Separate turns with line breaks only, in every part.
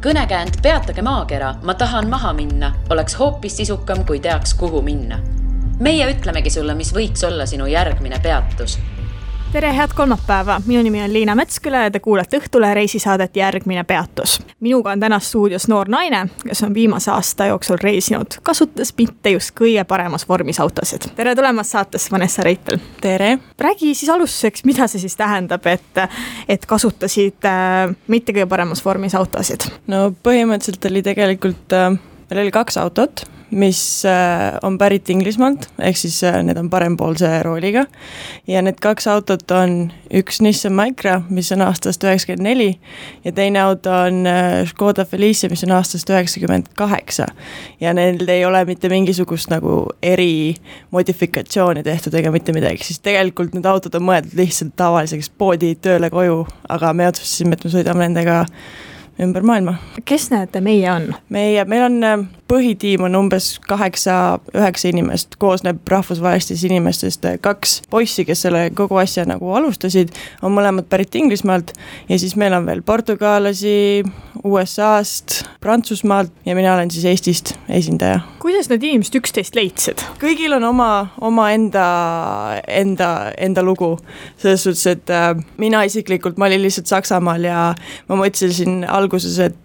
kõnekäänd Peatage maakera, ma tahan maha minna, oleks hoopis sisukam, kui teaks, kuhu minna. Meie ütlemegi sulle, mis võiks olla sinu järgmine peatus.
Tere, head kolmapäeva! Minu nimi on Liina Metsküla ja te kuulete Õhtule reisisaadet Järgmine peatus. Minuga on täna stuudios noor naine, kes on viimase aasta jooksul reisinud, kasutades mitte just kõige paremas vormis autosid. Tere tulemast saatesse, Vanessa Reitel!
Tere!
Räägi siis alustuseks, mida see siis tähendab, et kasutasid mitte kõige paremas vormis autosid?
No põhimõtteliselt oli tegelikult, meil oli 2 autot, mis on pärit Inglismaalt, ehk siis need on parempoolse rooliga. Ja need 2 autot on üks Nissan Micra, mis on aastast 94 ja teine auto on Škoda Felicia, mis on aastast 98. Ja neil ei ole mitte mingisugust nagu erimodifikatsiooni tehtud ega mitte midagi. Siis tegelikult need autod on mõeldud lihtsalt tavaliseks poodi tööle koju, aga me otsustasime, et me sõidame nendega ümber maailma.
Kes need meie on?
Meil on põhitiim on umbes 8-9 inimest, koosneb rahvusvahelistest inimestest 2 poissi, kes selle kogu asja nagu alustasid, on mõlemad pärit Inglismaalt ja siis meil on veel portugaalasi, USA-st, Prantsusmaalt ja mina olen siis Eestist esindaja.
Kuidas need inimesed üksteist leidsid?
Kõigil on oma enda lugu. Selles suhtes, et mina isiklikult, ma olin lihtsalt Saksamaal ja ma mõtlesin alguses, et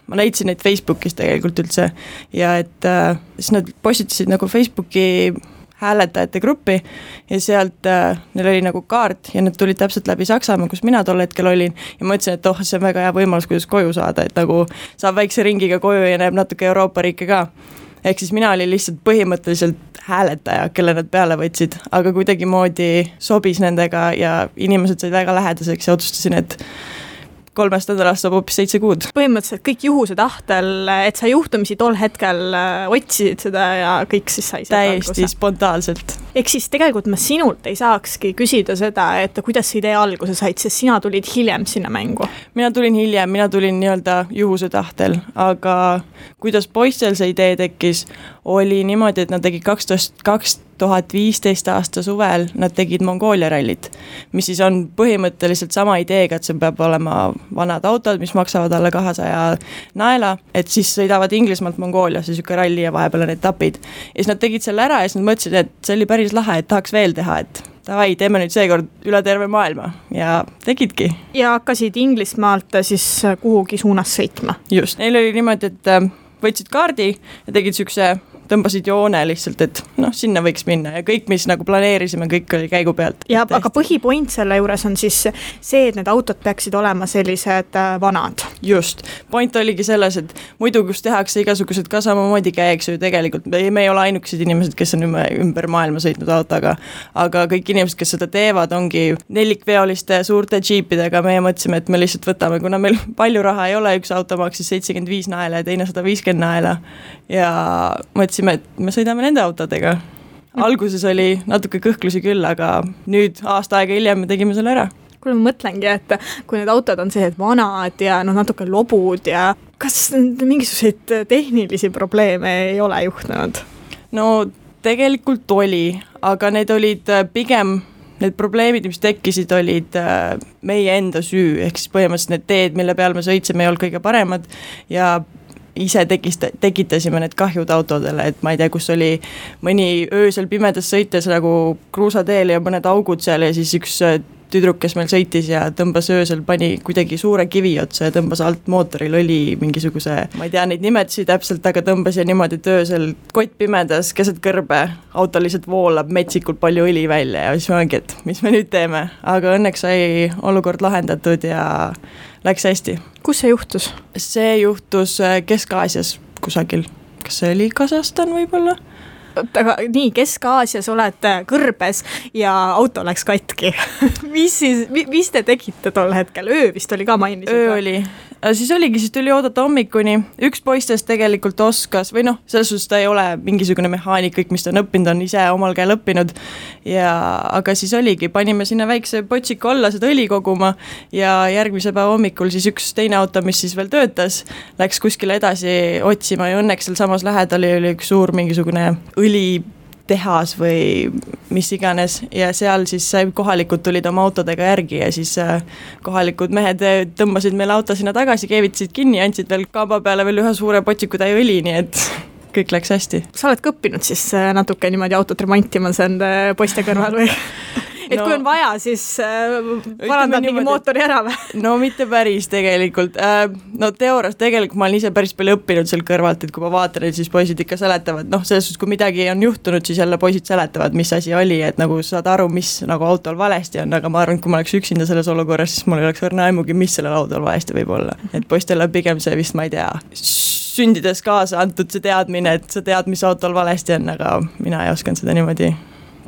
ma leidsin neid Facebookis tegelikult üldse ja et siis nad postitasid nagu Facebooki hääletajate gruppi ja sealt neil oli nagu kaart ja need tulid täpselt läbi Saksamaa, kus mina tol hetkel olin ja mõtlesin, et see on väga hea võimalus, kuidas koju saada, et nagu saab väikse ringiga koju ja näeb natuke Euroopa riike ka. Ehk siis mina olin lihtsalt põhimõtteliselt hääletaja, kelle nad peale võtsid, aga kuidagimoodi sobis nendega ja inimesed said väga lähedaseks ja otsustasin, et 3 nädalast saab hoopis 7 kuud.
Põhimõtteliselt kõik juhuse tahtel, et sa juhtumisi tol hetkel otsisid seda ja kõik siis sai
täiesti spontaanselt.
Ehk siis tegelikult ma sinult ei saakski küsida seda, et kuidas see idee alguse said, sest sina tulid hiljem sinna mängu.
Mina tulin hiljem, mina tulin nii-öelda juhuse tahtel, aga kuidas poistel see idee tekkis, oli niimoodi, et nad tegid 2015 aasta suvel, nad tegid Mongoolia rallit, mis siis on põhimõtteliselt sama ideega, et see peab olema vanad autod, mis maksavad alla 200 naela, et siis sõidavad Inglismaalt Mongooliasse siuke ralli ja vahepeal on etapid. Ja siis nad tegid selle ära ja siis nad mõtlesid, et see oli päris lahe, et tahaks veel teha, et davai, teeme nüüd seekord üle terve maailma ja tegidki.
Ja hakkasid Inglismaalt siis kuhugi suunas sõitma?
Just, neil oli niimoodi, et võtsid kaardi ja tegid siukse tõmbasid joone lihtsalt, et sinna võiks minna ja kõik, mis nagu planeerisime, kõik oli käigu pealt.
Ja aga põhipoint selle juures on siis see, et need autod peaksid olema sellised vanad.
Just. Point oligi selles, et muidu kus tehakse igasugused ka samamoodi käiks ju tegelikult. Me ei ole ainukesed inimesed, kes on ümber maailma sõitnud autoga, aga kõik inimesed, kes seda teevad, ongi nelikveoliste suurte džiipidega. Meie mõtlesime, et me lihtsalt võtame, kuna meil palju raha ei ole, üks auto maksis 75 naela ja teine 150 naela ja mõtlesime, et me sõidame nende autodega. Alguses oli natuke kõhklusi küll, aga nüüd aasta aega hiljem me tegime selle ära.
Kuule, ma mõtlengi, et kui need autod on sellised vanad ja natuke lobud ja kas mingisuguseid tehnilisi probleeme ei ole juhtunud?
No tegelikult oli, aga need olid pigem need probleemid, mis tekkisid, olid meie enda süü, ehk siis põhimõtteliselt need teed, mille peal me sõitsime, ei olnud kõige paremad ja ise tekitasime need kahjud autodele, et ma ei tea, kus oli mõni öösel pimedas sõites nagu kruusateel ja mõned augud seal ja siis üks tüdruk, kes meil sõitis ja tõmbas öösel, pani kuidagi suure kivi otsa ja tõmbas alt mootoril oli mingisuguse, ma ei tea neid nimetusi täpselt, aga tõmbas ja niimoodi, et öösel kott pimedas keset kõrbe, auto lihtsalt voolab metsikult palju õli välja ja siis ma olengi, et mis me nüüd teeme, aga õnneks sai olukord lahendatud ja läks hästi.
Kus see juhtus?
See juhtus Kesk-Aasias kusagil. Kas see oli Kasahstan võib-olla?
Aga nii, Kesk-Aasias oled kõrbes ja auto läks katki. mis te tegite tol hetkel? Öö vist oli ka mainisid?
Öö oli. Siis tuli oodata hommikuni. Üks poistest tegelikult oskas, või selles suhtes ta ei ole mingisugune mehaanik, kõik mis ta on õppinud, on ise omal käel õppinud. Aga siis oligi, panime sinna väikse potsiku alla seda õli koguma ja järgmise päeva hommikul siis üks teine auto, mis siis veel töötas, läks kuskile edasi otsima ja õnneks seal samas lähedal oli üks suur mingisugune õli tehas või mis iganes ja seal siis kohalikud tulid oma autodega järgi ja siis kohalikud mehed tõmbasid meile auto sinna tagasi, keevitasid kinni ja andsid veel kamba peale veel ühe suure potsikutäie õli, nii et kõik läks hästi.
Sa oled ka õppinud siis natuke niimoodi autot remontima enda poiste kõrval või? Et kui on vaja, siis parandad mingi mootori ära või?
No mitte päris tegelikult. No teoorias tegelikult ma olen ise päris palju õppinud seal kõrvalt, et kui ma vaatan, et siis poisid ikka seletavad, selles suhtes, kui midagi on juhtunud, siis jälle poisid seletavad, mis asi oli, et nagu saad aru, mis nagu autol valesti on, aga ma arvan, et kui ma oleks üksinda selles olukorras, siis mul ei oleks õrna aimugi, mis sellel autol valesti võib olla. Et poistele pigem see vist, ma ei tea, sündides kaasa antud see teadmine, et sa tead, mis autol valesti on, aga mina ei osanud seda niimoodi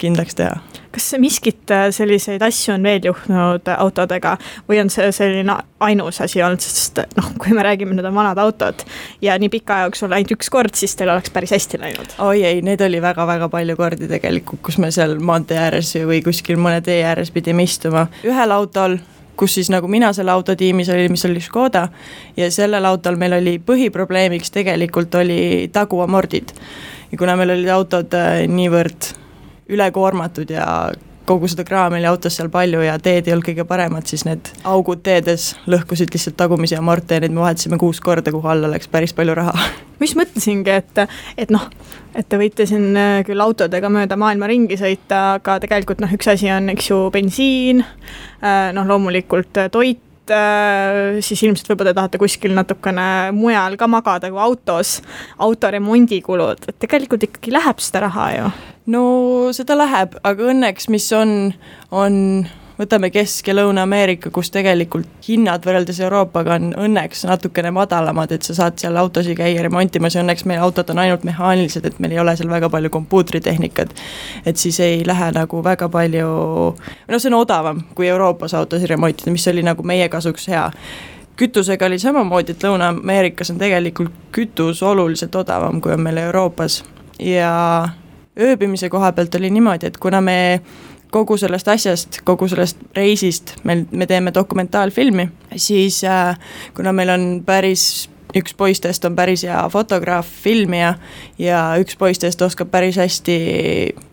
kindlaks teha.
Kas miskit selliseid asju on veel juhtunud autodega või on see selline ainus asi olnud, sest kui me räägime, need on vanad autod ja nii pika jaoks on ainult üks kord, siis teil oleks päris hästi läinud?
Oi ei, need oli väga-väga palju kordi tegelikult, kus me seal maantee ääres või kuskil mõne tee ääres pidime istuma. Ühel autol, kus siis nagu mina selle autotiimis oli, mis oli Škoda ja sellel autol meil oli põhiprobleemiks tegelikult oli taguamordid ja kuna meil olid autod niivõrd ülekoormatud ja kogu seda kraami oli autos seal palju ja teed ei olnud kõige paremad, siis need augud teedes lõhkusid lihtsalt tagumisi amorte ja need me vahetasime 6 korda, kuhu alla läks päris palju raha.
Mis mõtlesingi, et te võite siin küll autodega mööda maailma ringi sõita, aga tegelikult üks asi on, eks ju, bensiin, loomulikult toit, siis ilmselt võib-olla te tahate kuskil natukene mujal ka magada kui autos, autoremondikulud, et tegelikult ikkagi läheb seda raha ju.
No seda läheb, aga õnneks mis on võtame Kesk- ja Lõuna-Ameerika, kus tegelikult hinnad võrreldes Euroopaga on õnneks natukene madalamad, et sa saad seal autosi käia remontimas ja õnneks meie autod on ainult mehaanilised, et meil ei ole seal väga palju kompuutritehnikat, et siis ei lähe nagu väga palju, see on odavam kui Euroopas autosi remontida, mis oli nagu meie kasuks hea. Kütusega oli samamoodi, et Lõuna-Ameerikas on tegelikult kütus oluliselt odavam, kui on meil Euroopas ja ööbimise koha pealt oli niimoodi, et kuna me kogu sellest asjast, kogu sellest reisist me teeme dokumentaalfilmi, siis kuna meil on üks poistest on päris hea fotograaf, filmija ja üks poistest oskab päris hästi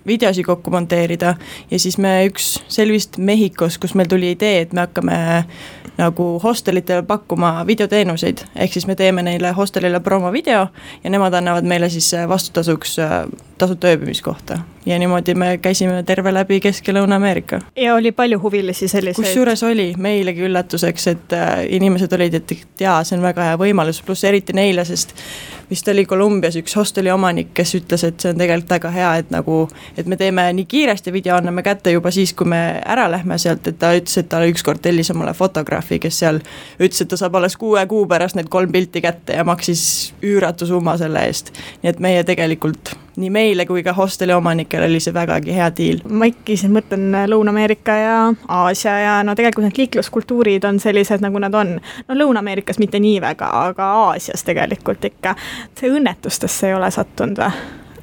videosi kokku monteerida ja siis me üks selvist Mehhikos, kus meil tuli idee, et me hakkame nagu hostelitele pakkuma videoteenuseid, ehk siis me teeme neile hostelile promovideo ja nemad annavad meile siis vastutasuks tasuta ööbimiskohta ja niimoodi me käisime terve läbi Kesk- ja Lõuna-Ameerika.
Ja oli palju huvilisi selliseid?
Kusjuures oli meilegi üllatuseks, et inimesed olid, et jaa, see on väga hea võimalus, pluss eriti neile, sest vist oli Kolumbias üks hosteli omanik, kes ütles, et see on tegelikult väga hea, et me teeme nii kiiresti video, anname kätte juba siis, kui me ära lähme sealt, et ta ütles, et ta ükskord tellis omale fotograafi, kes seal ütles, et ta saab alles 6 kuu pärast need 3 pilti kätte ja maksis üüratu summa selle eest. Nii et meie tegelikult nii meile kui ka hosteli omanikel oli see vägagi hea diil.
Ma ikka siin mõtlen Lõuna-Ameerika ja Aasia ja tegelikult need liikluskultuurid on sellised, nagu nad on. Lõuna-Ameerikas mitte nii väga, aga Aasias tegelikult ikka. See õnnetustesse ei ole sattunud või?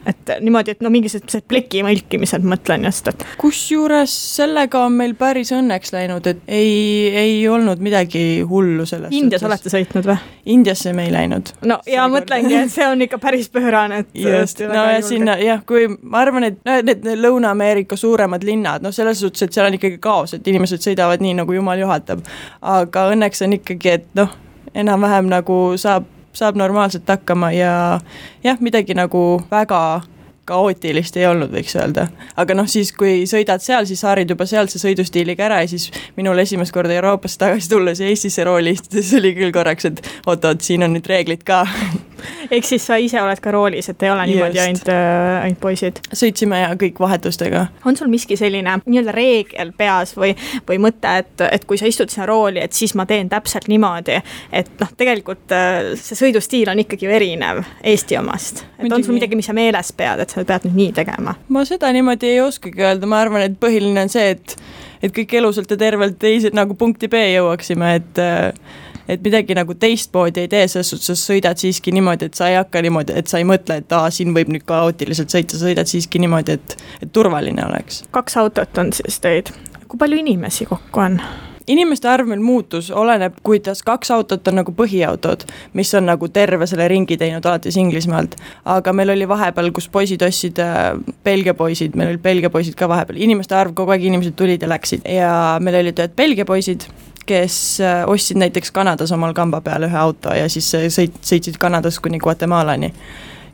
Et niimoodi, et mingisugused pleki mõlkimised mõtlen just, et
kusjuures sellega on meil päris õnneks läinud, et ei olnud midagi hullu sellest.
Indias olete sõitnud või?
Indiasse me ei läinud.
No ja mõtlengi, et see on ikka päris pöörane, et
just, no ja sinna, jah, kui ma arvan, et need Lõuna-Ameerika suuremad linnad, selles suhtes, et seal on ikkagi kaos, et inimesed sõidavad nii, nagu jumal juhatab, aga õnneks on ikkagi, et enam-vähem nagu saab normaalselt hakkama ja jah, midagi nagu väga kaootilist ei olnud, võiks öelda. Aga siis, kui sõidad seal, siis haarid juba sealt see sõidustiiliga ära ja siis minul esimest korda Euroopasse tagasi tulles ja Eestisse rooli istudes oli küll korraks, et oot, siin on nüüd reeglid ka.
Ehk siis sa ise oled ka roolis, et ei ole niimoodi ainult poisid?
Sõitsime ja kõik vahetustega.
On sul miski selline nii-öelda reegel peas või mõte, et kui sa istud sinna rooli, et siis ma teen täpselt niimoodi, et tegelikult see sõidustiil on ikkagi erinev Eesti omast. Et on sul midagi, mis sa meeles pead, et sa pead nüüd nii tegema?
Ma seda niimoodi ei oskagi öelda, ma arvan, et põhiline on see, et kõik elusalt ja tervelt nagu punkti B jõuaksime, et midagi nagu teistmoodi ei tee, selles suhtes sa sõidad siiski niimoodi, et sa ei hakka niimoodi, et sa ei mõtle, et siin võib nüüd kaootiliselt sõita, sa sõidad siiski niimoodi, et turvaline oleks.
2 autot on siis teid. Kui palju inimesi kokku on?
inimeste arv meil muutus, oleneb, kuidas 2 autot on nagu põhiautod, mis on nagu terve selle ringi teinud alates Inglismaalt, aga meil oli vahepeal, kus poisid ostsid, Belgia poisid, meil olid Belgia poisid ka vahepeal, inimeste arv kogu aeg, inimesed tulid ja läksid ja meil olid ühed Belgia poisid, kes ostsid näiteks Kanadas omal kamba peal ühe auto ja siis sõitsid Kanadas kuni Guatemalani.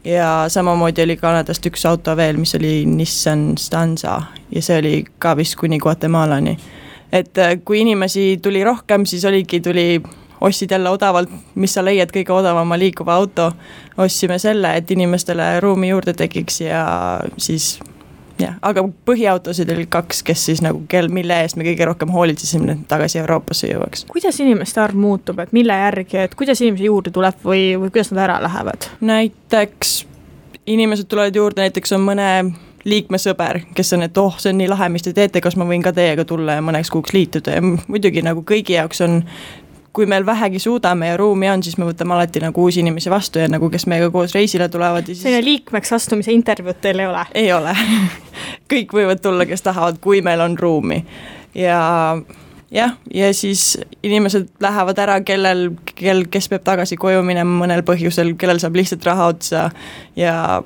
Ja samamoodi oli Kanadast üks auto veel, mis oli Nissan Stanza ja see oli ka vist kuni Guatemalani. Et kui inimesi tuli rohkem, siis tuli ostsid jälle odavalt, mis sa leiad kõige odavama liikuva auto, ostsime selle, et inimestele ruumi juurde tekiks ja siis aga põhiautosid oli 2, kes siis nagu mille eest me kõige rohkem hoolitsesime tagasi Euroopasse jõuaks.
Kuidas inimeste arv muutub, et mille järgi, et kuidas inimesi juurde tuleb või kuidas nad ära lähevad?
Näiteks inimesed tulevad juurde, näiteks on mõne liikmesõber, kes on, et see on nii lahe, mis te teete, kas ma võin ka teiega tulla ja mõneks kuuks liituda ja muidugi nagu kõigi jaoks on, kui meil vähegi suudame ja ruumi on, siis me võtame alati nagu uusi inimesi vastu ja nagu kes meiega koos reisile tulevad.
Selline liikmeks astumise intervjuud teil ei ole?
Ei ole. Kõik võivad tulla, kes tahavad, kui meil on ruumi. Ja siis inimesed lähevad ära, kes peab tagasi koju minema mõnel põhjusel, kellel saab lihtsalt raha otsa ja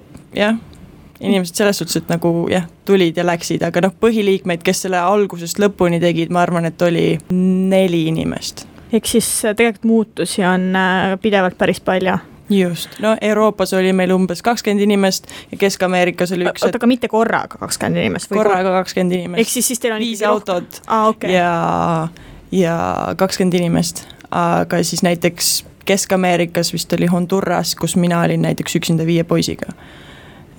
inimesed selles suhtes, et nagu tulid ja läksid, aga põhiliikmeid, kes selle algusest lõpuni tegid, ma arvan, et oli 4 inimest.
Ehk siis tegelikult muutusi on pidevalt päris palju.
Just, Euroopas oli meil umbes 20 inimest ja Kesk-Ameerikas oli üks.
Aga mitte korraga 20 inimest?
Korraga 20 inimest.
Ehk siis teil on
5 autot
okay.
ja 20 inimest, aga siis näiteks Kesk-Ameerikas vist oli Honduras, kus mina olin näiteks üksinda 5 poisiga.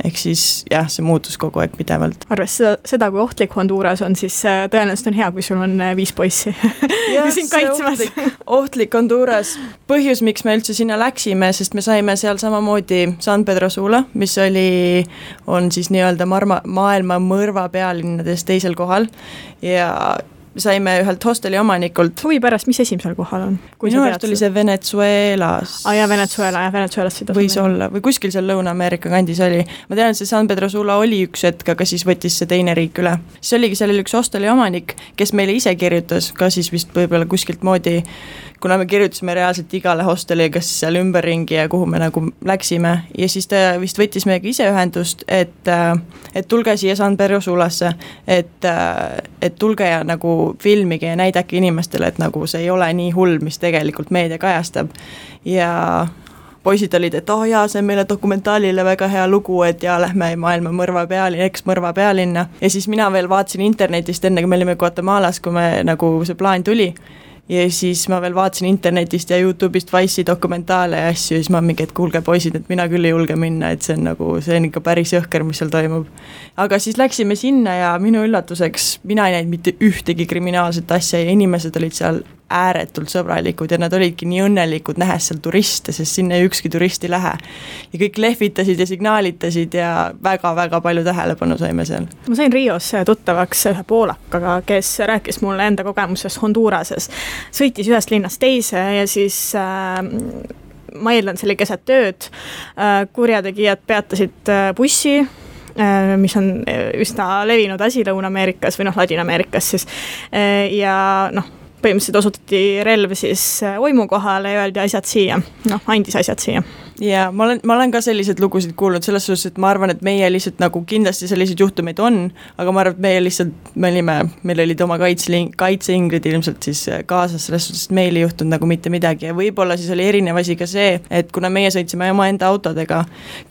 Ehk siis see muutus kogu aeg pidevalt.
Arves seda, kui ohtlik Honduras on, siis tõenäoliselt on hea, kui sul on 5 poissi siin kaitsmas.
Ohtlik Honduras. Põhjus, miks me üldse sinna läksime, sest me saime seal samamoodi San Pedro Sula, mis on siis nii-öelda maailma mõrva pealinnades teisel kohal ja saime ühelt hosteli omanikult.
Huvi pärast, mis esimesel kohal on?
Minu arust oli see Venezuelas.
Venezuelas.
Võis olla, või kuskil seal Lõuna-Ameerika kandis oli. Ma tean, et see San Pedro Sula oli üks hetk, aga siis võttis see teine riik üle. See oligi sellel üks hosteli omanik, kes meile ise kirjutas, ka siis vist võib-olla kuskilt moodi, kuna me kirjutasime reaalselt igale hosteli, kas seal ümberringi ja kuhu me nagu läksime ja siis ta vist võttis meiega ise ühendust, et tulge siia San Pedro Sulasse, et tulge ja nagu filmige ja näidake inimestele, et nagu see ei ole nii hull, mis tegelikult meedia kajastab ja poisid olid, et see on meile dokumentaalile väga hea lugu, et lähme maailma eks-mõrva pealinna ja siis mina veel vaatasin internetist enne, kui me olime Guatemalas, kui me nagu see plaan tuli ja siis ma veel vaatasin internetist ja YouTube'ist Vice'i dokumentaale ja asju ja siis ma mingi, et kuulge poisid, et mina küll ei julge minna, et see on ikka päris jõhker, mis seal toimub. Aga siis läksime sinna ja minu üllatuseks mina ei näinud mitte ühtegi kriminaalset asja ja inimesed olid seal ääretult sõbralikud ja nad olidki nii õnnelikud nähes seal turiste, sest sinna ükski turist ei lähe. Ja kõik lehvitasid ja signaalitasid ja väga-väga palju tähelepanu saime seal.
Ma sain Rios tuttavaks ühe poolakaga, kes rääkis mulle enda kogemusest Hondurases. Sõitis ühest linnast teise ja siis ma eeldan, see oli keset tööd. Kurjategijad peatasid bussi, mis on üsna levinud asi Lõuna-Ameerikas või Ladina-Ameerikas siis. Ja põhimõtteliselt osutati relv siis oimu kohale ja öeldi asjad siia, andis asjad siia.
Ja ma olen ka sellised lugusid kuulnud selles suhtes, et ma arvan, et meie lihtsalt nagu kindlasti sellised juhtumeid on, aga ma arvan, et meie lihtsalt, meil olid oma kaitseingrid ilmselt siis kaasas selles suhtes, et meil ei juhtunud nagu mitte midagi ja võib-olla siis oli erinev asi ka see, et kuna meie sõitsime oma enda autodega,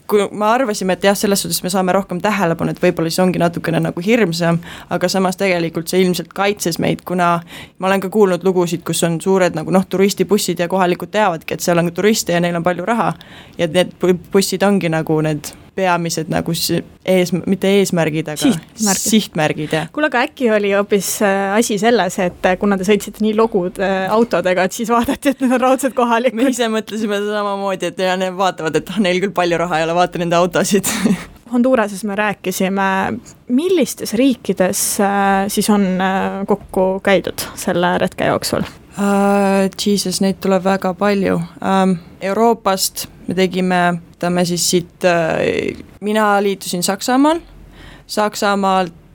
kui me arvasime, et selles suhtes me saame rohkem tähelepanu, et võib-olla siis ongi natukene nagu hirmsam, aga samas tegelikult see ilmselt kaitses meid, kuna ma olen ka kuulnud lugusid, kus on suured nagu turistibussid ja kohalikud teavadki, et seal on turiste ja neil on palju raha ja need bussid ongi nagu need peamised nagu mitte eesmärgid, aga sihtmärgid.
Kuule, aga äkki oli hoopis asi selles, et kuna te sõitsite nii logud autodega, et siis vaadati, et need on raudselt kohalikud.
Me ise mõtlesime samamoodi, et need vaatavad, et neil küll palju raha ei ole, vaata nende autosid.
Hondurases me rääkisime, millistes riikides siis on kokku käidud selle retke jooksul?
Jesus, neid tuleb väga palju. Euroopast me tegime siis siit, mina liitusin Saksamaalt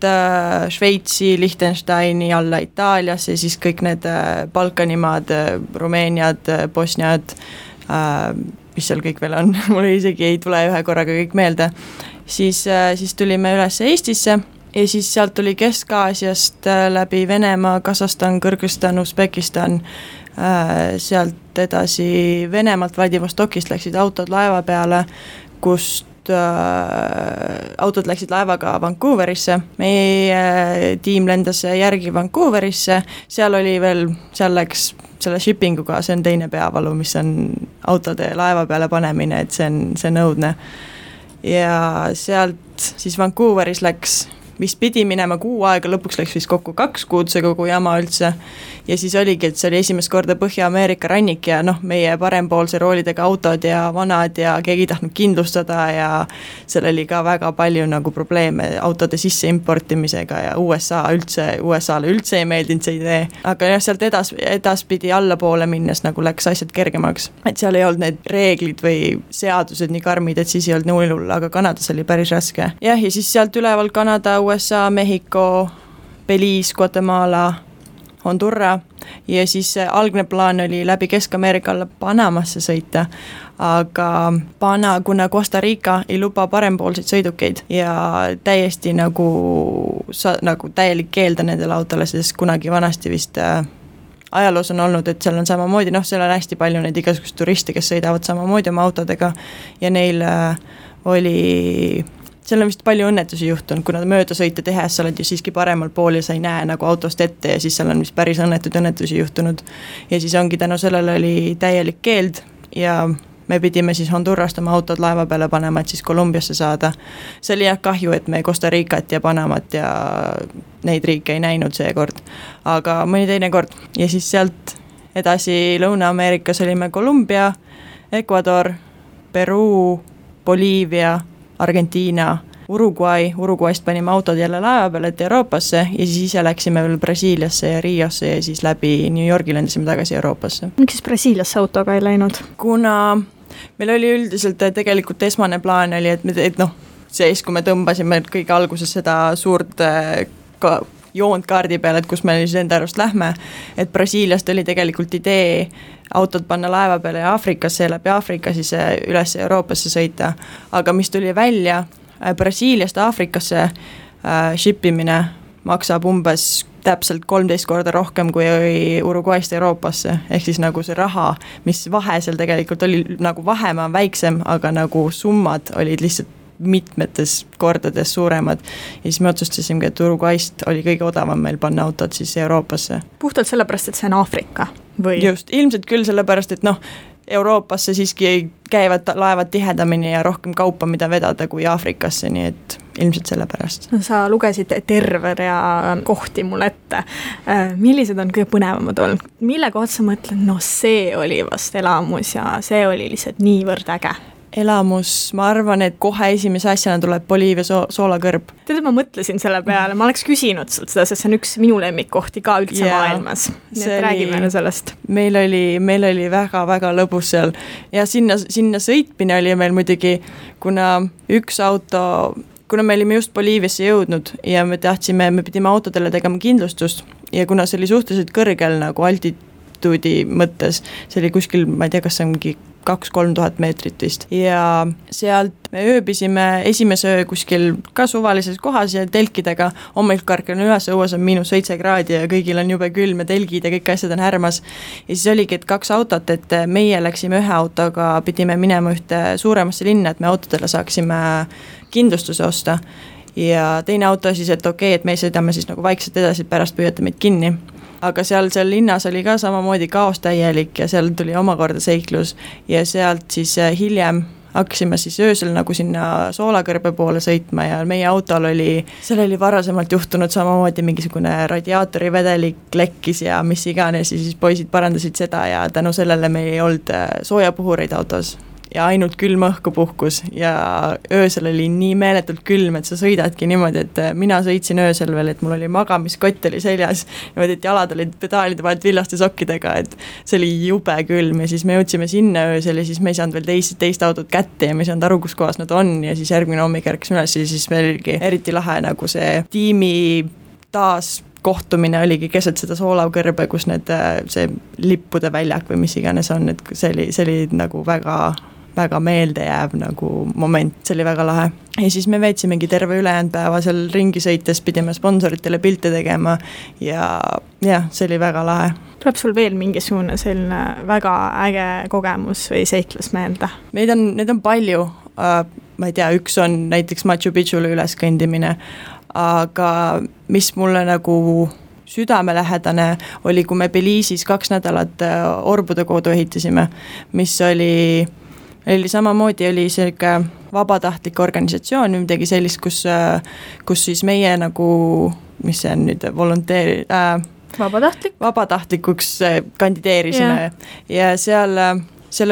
sealt Šveitsi, Liechtensteini alla Itaaliasse, siis kõik need Balkanimaad, Rumeeniad, Bosniad, mis seal kõik veel on, mul isegi ei tule ühe korraga kõik meelde, siis tulime üles Eestisse ja siis sealt tuli Kesk-Aasiast läbi Venemaa, Kasahstan, Kõrgõzstan, Usbekistan, sealt edasi Venemaalt Vladivostokist läksid autod laeva peale, kust autod läksid laevaga Vancouverisse, meie tiim lendas järgi Vancouverisse, seal läks selle shippinguga, see on teine peavalu, mis on autode laeva peale panemine, et see on õudne. Ja sealt siis Vancouveris läks vist pidi minema 6 aega, lõpuks läks vist kokku 2 kuud see kogu jama üldse ja siis oligi, et see oli esimest korda Põhja-Ameerika rannik ja meie parempoolse roolidega autod ja vanad ja keegi ei tahtnud kindlustada ja seal oli ka väga palju nagu probleeme autode sisse importimisega ja USA-le üldse ei meeldinud see idee, aga jah, sealt edaspidi allapoole minnes nagu läks asjad kergemaks, et seal ei olnud need reeglid või seadused nii karmid, et siis ei olnud nii hull, aga Kanadas oli päris raske. Jah, ja siis sealt üleval Kanada, USA, Mehhiko, Belize, Guatemala, Hondurra ja siis algne plaan oli läbi Kesk-Ameerika alla Panamasse sõita, aga kuna Costa Rica ei luba parempoolseid sõidukeid ja täiesti nagu täielik keelda nendele autole, sest kunagi vanasti vist ajaloos on olnud, et seal on samamoodi, seal on hästi palju neid igasugust turiste, kes sõidavad samamoodi oma autodega ja neil seal on vist palju õnnetusi juhtunud, kuna möödasõite tehes sa oled ju siiski paremal pool ja sa ei näe nagu autost ette ja siis seal on vist päris õnnetusi juhtunud. Ja siis ongi tänu sellele oli täielik keeld ja me pidime siis Hondurrast oma autod laeva peale panema, et siis Kolumbiasse saada. See oli jah kahju, et me Costa Ricat ja Panamat ja neid riike ei näinud seekord, aga mõni teine kord. Ja siis sealt edasi Lõuna-Ameerikas olime Kolumbia, Ecuador, Peruu, Boliivia, Argentiina, Uruguayst panime autod jälle laeva peale, et Euroopasse ja siis ise läksime veel Brasiiliasse ja Riosse ja siis läbi New Yorgi lendasime tagasi Euroopasse.
Miks siis Brasiiliasse autoga ei läinud?
Kuna meil oli üldiselt tegelikult esmane plaan oli, et siis kui me tõmbasime kõige alguses seda suurt joont kaardi peale, et kus me siis enda arust lähme, et Brasiiliast oli tegelikult idee autod panna laeva peale Aafrikasse ja läbi Aafrika siis üles Euroopasse sõita, aga mis tuli välja, Brasiiliast Aafrikasse shippimine maksab umbes täpselt 13 korda rohkem kui Uruguayst Euroopasse, ehk siis nagu see raha, mis vahe seal tegelikult oli, nagu vahemaa väiksem, aga nagu summad olid lihtsalt mitmetes kordades suuremad ja siis me otsustasimegi, et Uruguayst oli kõige odavam meil panna autod siis Euroopasse.
Puhtalt sellepärast, et see on Aafrika? Või?
Just, ilmselt küll sellepärast, et Euroopasse siiski käivad laevad tihedamini ja rohkem kaupa, mida vedada kui Aafrikasse, nii et ilmselt sellepärast.
Sa lugesid terve rea kohti mulle ette. Millised on kõige põnevamad olnud? Mille kohta sa mõtled, see oli vast elamus ja see oli lihtsalt niivõrd äge?
Elamus, ma arvan, et kohe esimese asjana tuleb Boliivia soolakõrb.
Tead, ma mõtlesin selle peale, ma oleks küsinud sult seda, sest see on üks minu lemmikkohti ka üldse maailmas. Nii et räägi meile sellest.
Meil oli väga-väga lõbus seal ja sinna sõitmine oli meil muidugi, kuna me olime just Boliiviasse jõudnud ja me pidime autodele tegema kindlustust ja kuna see oli suhteliselt kõrgel nagu altituudi mõttes, see oli kuskil, ma ei tea, kas see ongi 2-3 tuhat meetrit vist ja sealt me ööbisime esimese öö kuskil ka suvalises kohas ja telkidega, hommikul karkan üles, õues on -7 kraadi ja kõigil on jube külm ja telgid ja kõik asjad on härmas ja siis oligi, et 2 autot, et meie läksime ühe autoga, pidime minema ühte suuremasse linna, et me autodele saaksime kindlustuse osta ja teine auto siis, et okei, et me sõidame siis nagu vaikselt edasi, pärast püüate meid kinni. Aga seal linnas oli ka samamoodi kaos täielik ja seal tuli omakorda seiklus ja sealt siis hiljem hakkasime siis öösel nagu sinna soolakõrbe poole sõitma ja meie autol seal oli varasemalt juhtunud samamoodi mingisugune radiaatori vedelik lekkis ja mis iganes ja siis poisid parandasid seda ja tänu sellele meil ei olnud soojapuhureid autos. ja ainult külm õhku puhkus ja öösel oli nii meeletult külm, et sa sõidadki niimoodi, et mina sõitsin öösel veel, et mul oli magamiskott oli seljas, niimoodi, et jalad olid pedaalide vahelt villaste sokkidega, et see oli jube külm ja siis me jõudsime sinna öösel ja siis me ei saanud veel teist autot kätte ja me ei saanud aru, kus kohas nad on ja siis järgmine hommik ärkasime üles ja siis meil oligi eriti lahe nagu see tiimi taas kohtumine oligi keset seda soolavkõrbe, kus see lippude väljak või mis iganes on, et see oli nagu väga meeldejääv nagu moment, see oli väga lahe. Ja siis me veetsimegi terve ülejäänud päeva seal ringi sõites, pidime sponsoritele pilte tegema ja see oli väga lahe.
Tuleb sul veel mingisugune selline väga äge kogemus või seiklus meelde?
Neid on palju, ma ei tea, üks on näiteks Machu Picchule üles kõndimine, aga mis mulle nagu südamelähedane oli, kui me Belize'is 2 nädalat orbude kodu ehitasime, mis oli samamoodi oli selline vabatahtlik organisatsioon, midagi sellist, kus siis meie nagu, mis see on nüüd, vabatahtlikuks kandideerisime ja seal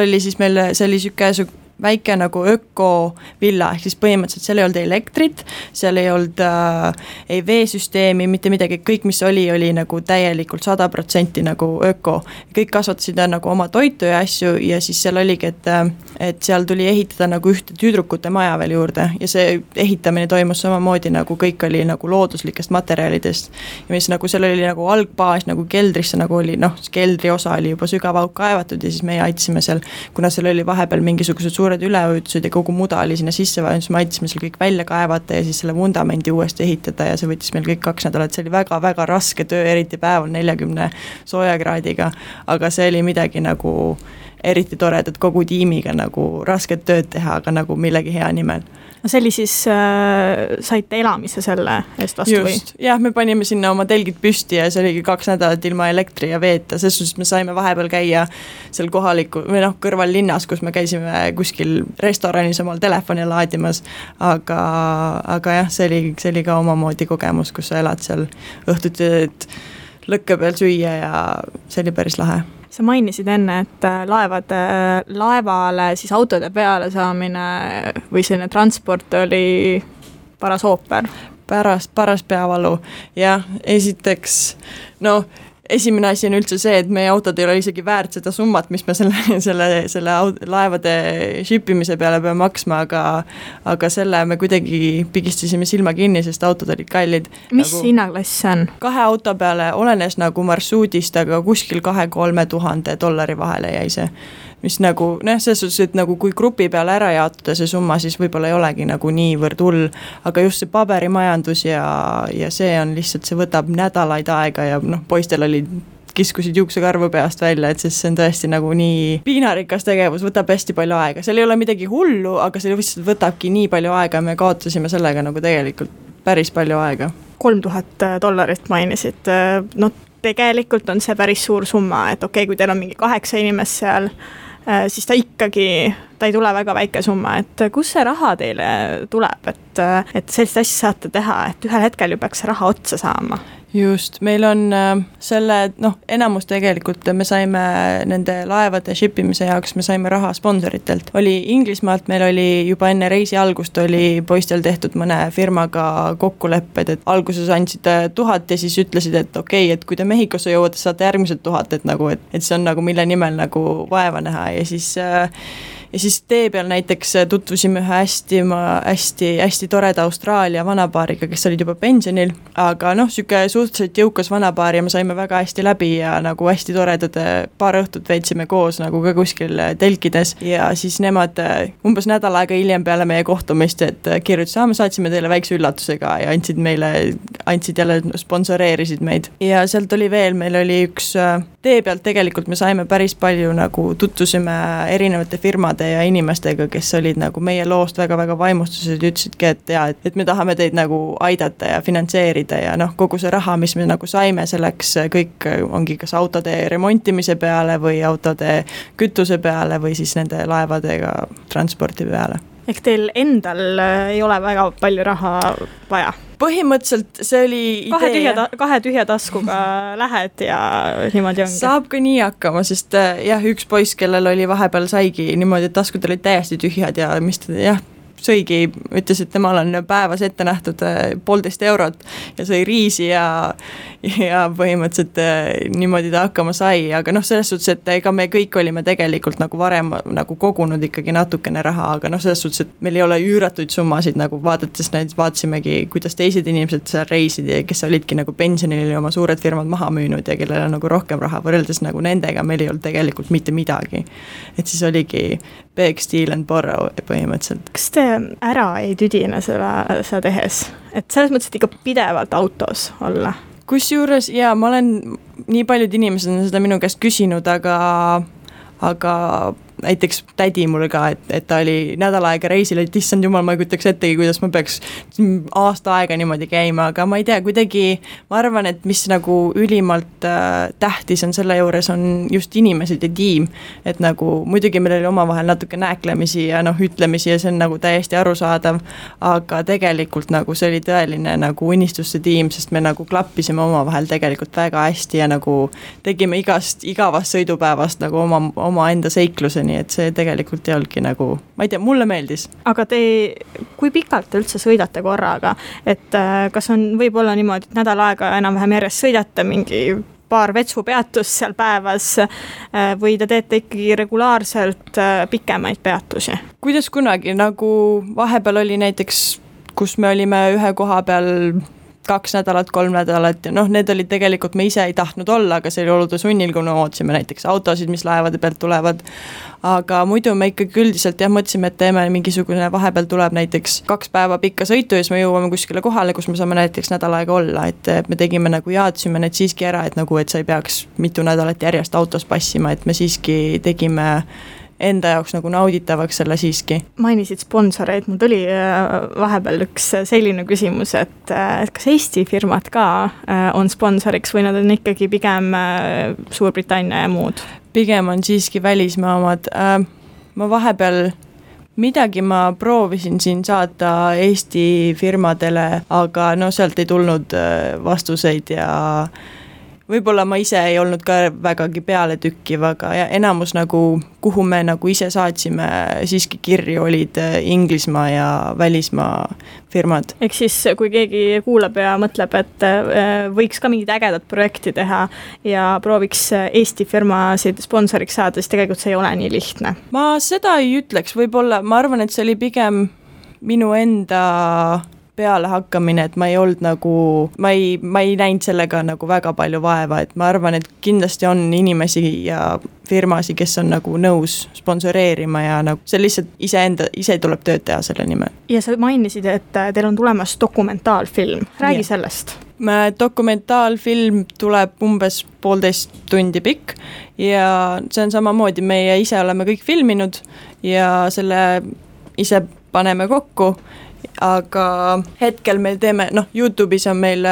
oli siis meil, see oli selline väike nagu ökovilla, ehk siis põhimõtteliselt seal ei olnud elektrit, seal ei olnud ei veesüsteemi, mitte midagi, kõik mis oli nagu täielikult 100% nagu öko. Kõik kasvatasid nagu oma toitu ja asju ja siis seal oligi, et seal tuli ehitada nagu ühte tüdrukute maja veel juurde ja see ehitamine toimus samamoodi nagu kõik oli nagu looduslikest materjalidest ja mis nagu seal oli nagu algbaas nagu keldrisse nagu oli, keldri osa oli juba sügavauk kaevatud ja siis meie aitasime seal, kuna seal oli vahepeal mingisugused suured üleujutused ja kogu muda oli sinna sisse vaja, siis me aitasime seal kõik välja kaevata ja siis selle vundamendi uuesti ehitada ja see võttis meil kõik 2 nädalat, see oli väga-väga raske töö, eriti päeval 40 soojakraadiga, aga see oli midagi nagu eriti toredat kogu tiimiga nagu rasket tööd teha, aga nagu millegi hea nimel.
No see oli siis, saite elamise selle eest vastu või?
Just, jah, me panime sinna oma telgid püsti ja see oligi 2 nädalat ilma elektri ja veeta, selles suhtes me saime vahepeal käia seal kohaliku või kõrval linnas, kus me käisime kuskil restoranis omal telefoni laadimas, aga jah, see oli ka omamoodi kogemus, kus sa elad seal õhtuti lõkke peal süüa ja see oli päris lahe.
Sa mainisid enne, et laevale siis autode peale saamine või selline transport oli paras ooper.
Paras peavalu, jah, esiteks, esimene asi on üldse see, et meie autod ei ole isegi väärt seda summat, mis me selle laevade shipimise peale peame maksma, aga selle me kuidagi pigistasime silma kinni, sest autod olid kallid.
Mis hinnaklass see on?
2 auto peale olenes nagu marsruudist, aga kuskil 2-3 tuhande dollari vahele jäi see. Mis nagu, selles suhtes, et nagu kui grupi peale ära jaotada see summa, siis võib-olla ei olegi nagu niivõrd hull, aga just see paberimajandus ja see on lihtsalt, see võtab nädalaid aega ja poistel kiskusid juuksekarvu peast välja, et see on tõesti nagu nii piinarikas tegevus, võtab hästi palju aega, seal ei ole midagi hullu, aga see lihtsalt võtabki nii palju aega ja me kaotasime sellega nagu tegelikult päris palju aega.
$3000 mainisid, tegelikult on see päris suur summa, et okei, kui teil on mingi 8 inimest seal, siis ta ei tule väga väike summa, et kus see raha teile tuleb, et sellist asja saate teha, et ühel hetkel ju peaks raha otsa saama?
Just, meil on enamus tegelikult me saime nende laevade shipimise jaoks, me saime raha sponsoritelt. Oli Inglismaalt, meil oli juba enne reisi algust oli poistel tehtud mõne firmaga kokkulepped, et alguses andsid 1000 ja siis ütlesid, et okei, et kui te Mehhikosse jõuate, saate järgmised 1000, et see on nagu mille nimel nagu vaeva näha ja siis tee peal näiteks tutvusime ühe hästi toreda Austraalia vanapaariga, kes olid juba pensionil, aga süke suhteliselt jõukas vanapaar ja me saime väga hästi läbi ja nagu hästi toredad paar õhtut veetsime koos nagu ka kuskil telkides ja siis nemad umbes nädal aega hiljem peale meie kohtumist, et kirjutasid, me saatsime teile väikse üllatusega ja andsid jälle, sponsoreerisid meid. Ja sealt oli veel, meil oli üks tee pealt tegelikult me saime päris palju nagu tutvusime erinevate firmade ja inimestega, kes olid nagu meie loost väga-väga vaimustused ja ütlesidki, et me tahame teid nagu aidata ja finantseerida ja kogu see raha, mis me nagu saime, selleks kõik ongi kas autode remontimise peale või autode kütuse peale või siis nende laevadega transporti peale.
Ehk teil endal ei ole väga palju raha vaja?
Põhimõtteliselt see oli idee.
Kahe tühja taskuga lähed ja niimoodi ongi.
Saab ka nii hakkama, sest üks poiss, kellel oli vahepeal saigi niimoodi, et taskud olid täiesti tühjad ja mis ta sõigi, ütles, et temal on päevas ette nähtud 1,5 eurot ja sõi riisi ja põhimõtteliselt niimoodi ta hakkama sai, aga selles suhtes, et ega me kõik olime tegelikult nagu varem nagu kogunud ikkagi natukene raha, aga selles suhtes, et meil ei ole üüratuid summasid nagu vaadates, vaatasimegi, kuidas teised inimesed seal reisid ja kes olidki nagu pensionil ja oma suured firmad maha müünud ja kellel on nagu rohkem raha võrreldes nagu nendega, meil ei olnud tegelikult mitte midagi. Et siis oligi beg, steal and borrow põhimõtteliselt.
Kas te ära ei tüdine seda tehes? Et selles mõttes, et ikka pidevalt autos olla?
Kusjuures, ma olen, nii paljud inimesed on seda minu käest küsinud, aga näiteks tädi mul ka, et ta oli nädal aega reisil, et issand jumal, ma ei kutaks ettegi, kuidas ma peaks aasta aega niimoodi käima, aga ma ei tea, kuidagi ma arvan, et mis nagu ülimalt tähtis on selle juures, on just inimesed ja tiim, et nagu muidugi meil oli omavahel natuke nääklemisi ja ütlemisi ja see on nagu täiesti arusaadav, aga tegelikult nagu see oli tõeline nagu unistuste tiim, sest me nagu klappisime omavahel tegelikult väga hästi ja nagu tegime igavast sõidupäevast nagu oma enda seikluseni, et see tegelikult ei olnudki nagu, ma ei tea, mulle meeldis.
Aga kui pikalt te üldse sõidate korraga, et kas võib olla niimoodi, et nädal aega enam-vähem järjest sõidate mingi paar vetsupeatust seal päevas või te teete ikkagi regulaarselt pikemaid peatusi?
Kuidas kunagi, nagu vahepeal oli näiteks, kus me olime ühe koha peal 2 nädalat, 3 nädalat ja need olid tegelikult, me ise ei tahtnud olla, aga see oli olude sunnil, kui me ootasime näiteks autosid, mis laevade pealt tulevad, aga muidu me ikkagi üldiselt mõtlesime, et teeme mingisugune, vahepeal tuleb näiteks 2 päeva pikka sõitu ja siis me jõuame kuskile kohale, kus me saame näiteks nädal aega olla, et me tegime nagu jaadsime need siiski ära, et nagu, et sa ei peaks mitu nädalat järjest autos passima, et me siiski tegime enda jaoks nagu nauditavaks selle siiski.
Mainisid sponsoreid, mul tuli vahepeal üks selline küsimus, et kas Eesti firmad ka on sponsoriks või nad on ikkagi pigem Suurbritannia ja muud?
Pigem on siiski välismaa omad. Ma vahepeal midagi ma proovisin siin saata Eesti firmadele, aga sealt ei tulnud vastuseid ja võib-olla ma ise ei olnud ka vägagi peale tükkiv, aga enamus nagu, kuhu me nagu ise saatsime siiski kirju, olid Inglismaa ja välismaa firmad.
Ehk siis, kui keegi kuulab ja mõtleb, et võiks ka mingid ägedad projekti teha ja prooviks Eesti firmasid sponsoriks saada, siis tegelikult see ei ole nii lihtne.
Ma seda ei ütleks, võib-olla, ma arvan, et see oli pigem minu enda peale hakkamine, et ma ei olnud nagu, ma ei näinud sellega nagu väga palju vaeva, et ma arvan, et kindlasti on inimesi ja firmasi, kes on nagu nõus sponsoreerima ja nagu see lihtsalt ise tuleb tööd teha selle nimel.
Ja sa mainisid, et teil on tulemas dokumentaalfilm. Räägi sellest.
Dokumentaalfilm tuleb umbes 1,5 tundi pikk ja see on samamoodi, meie ise oleme kõik filminud ja selle ise paneme kokku, aga hetkel meil teeme, YouTube'is on meil,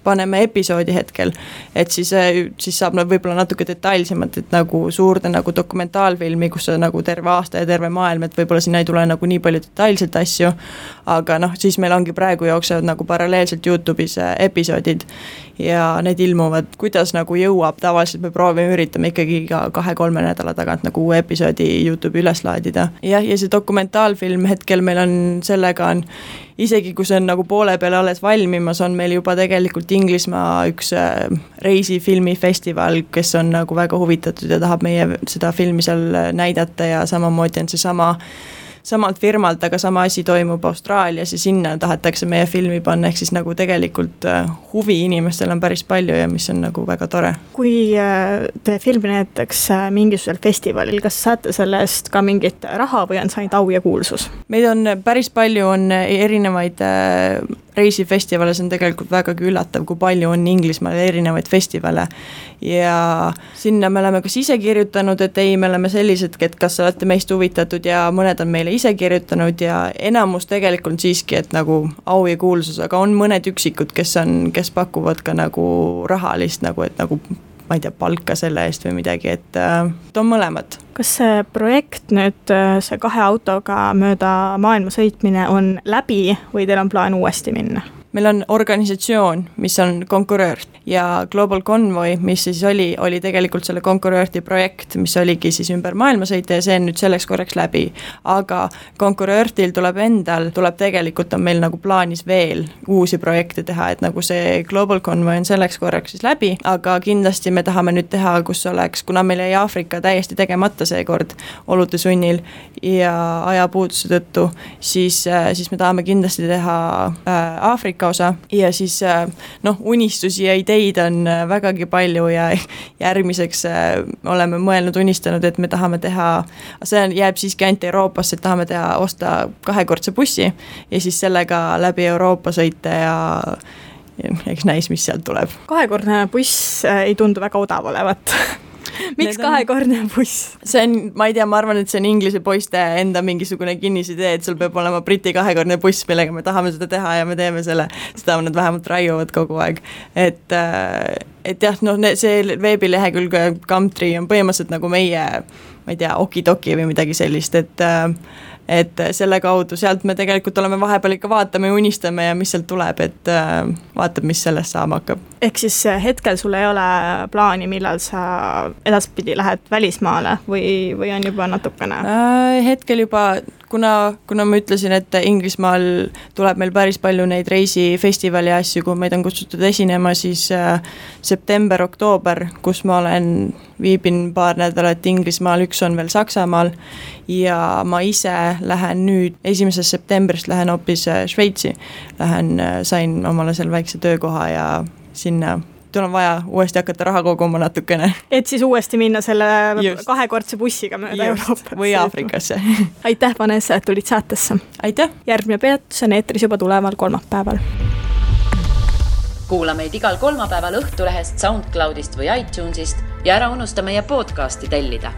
paneme episoodi hetkel, et siis saab võib-olla natuke detailsemalt, et nagu suurde nagu dokumentaalfilmi, kus on nagu terve aasta ja terve maailm, et võib-olla sinna ei tule nagu nii palju detailselt asju, aga siis meil ongi praegu jooksevad nagu paralleelselt YouTube'is episoodid ja need ilmuvad, kuidas nagu jõuab, tavaliselt me üritame ikkagi ka 2-3 nädala tagant nagu uue episoodi YouTube'i üles laadida. Ja see dokumentaalfilm hetkel meil on, sellega on isegi kui see on nagu poole peale alles valmimas, on meil juba tegelikult Inglismaa üks reisifilmifestival, kes on nagu väga huvitatud ja tahab meie seda filmi seal näidata ja samamoodi on see samalt firmalt, aga sama asi toimub Austraalias ja sinna tahetakse meie filmi panna, ehk siis nagu tegelikult huvi inimestel on päris palju ja mis on nagu väga tore.
Kui te filmi näitakse mingisugusel festivalil, kas saate selle eest ka mingit raha või on saanud au ja kuulsus?
Meid on päris palju, on erinevaid reisifestivale, see on tegelikult vägagi üllatav, kui palju on Inglismaal erinevaid festivale ja sinna me oleme kas ise kirjutanud, et ei, me oleme sellised, et kas olete meist huvitatud ja mõned on meile ise kirjutanud ja enamus tegelikult siiski, et nagu au ja kuulsus, aga on mõned üksikud, kes pakuvad ka nagu rahalist nagu, et nagu ma ei tea, palka selle eest või midagi, et on mõlemad.
Kas see projekt nüüd, see 2 autoga mööda maailma sõitmine on läbi või teil on plaan uuesti minna?
Meil on organisatsioon, mis on konkuröör ja Global Convoy, mis siis oli tegelikult selle konkuröörti projekt, mis oligi siis ümber maailma sõita ja see on nüüd selleks korraks läbi. Aga konkuröörtil tuleb tegelikult on meil nagu plaanis veel uusi projekte teha, et nagu see Global Convoy on selleks korraks siis läbi, aga kindlasti me tahame nüüd teha, kus oleks, kuna meil jäi Aafrika täiesti tegemata seekord olude sunnil ja ajapuuduse tõttu, siis me tahame kindlasti teha Aafrika osa ja siis unistusi ja ideid on vägagi palju ja järgmiseks oleme unistanud, et me tahame teha, see jääb siiski ainult Euroopasse, et tahame osta 2-kordse bussi ja siis sellega läbi Euroopa sõita ja eks näis, mis sealt tuleb.
2-kordne buss ei tundu väga odav olevat. Miks 2-kordne buss?
See on, ma ei tea, ma arvan, et see on Inglise poiste enda mingisugune kinnisidee, et sul peab olema Briti 2-kordne buss, millega me tahame seda teha ja me teeme seda nad vähemalt raiuvad kogu aeg. Et jah, see veebilehekülg Gumtree on põhimõtteliselt nagu meie, ma ei tea, okidoki või midagi sellist, et selle kaudu sealt me tegelikult oleme vahepeal ikka vaatame ja unistame ja mis sealt tuleb, et vaatab, mis sellest saama hakkab.
Ehk siis hetkel sul ei ole plaani, millal sa edaspidi lähed välismaale või on juba natukene?
Hetkel juba, kuna ma ütlesin, et Inglismaal tuleb meil päris palju neid reisifestivali asju, kui meid on kutsutud esinema, siis september-oktoober, kus ma viibin 2 nädalat Inglismaal, 1 on veel Saksamaal ja ma ise lähen nüüd 1. septembrist lähen hoopis Šveitsi. Sain omale seal väikse töökoha ja sinna on vaja uuesti hakata raha koguma natukene. Et
siis uuesti minna selle 2-kordse bussiga mööda Euroopat.
Või Aafrikasse.
Aitäh, Vanessa, et tulid saatesse.
Aitäh.
Järgmine peatus on eetris juba tuleval kolmapäeval.
Kuula meid igal kolmapäeval Õhtulehest, SoundCloudist või iTunesist ja ära unusta meie podcasti tellida.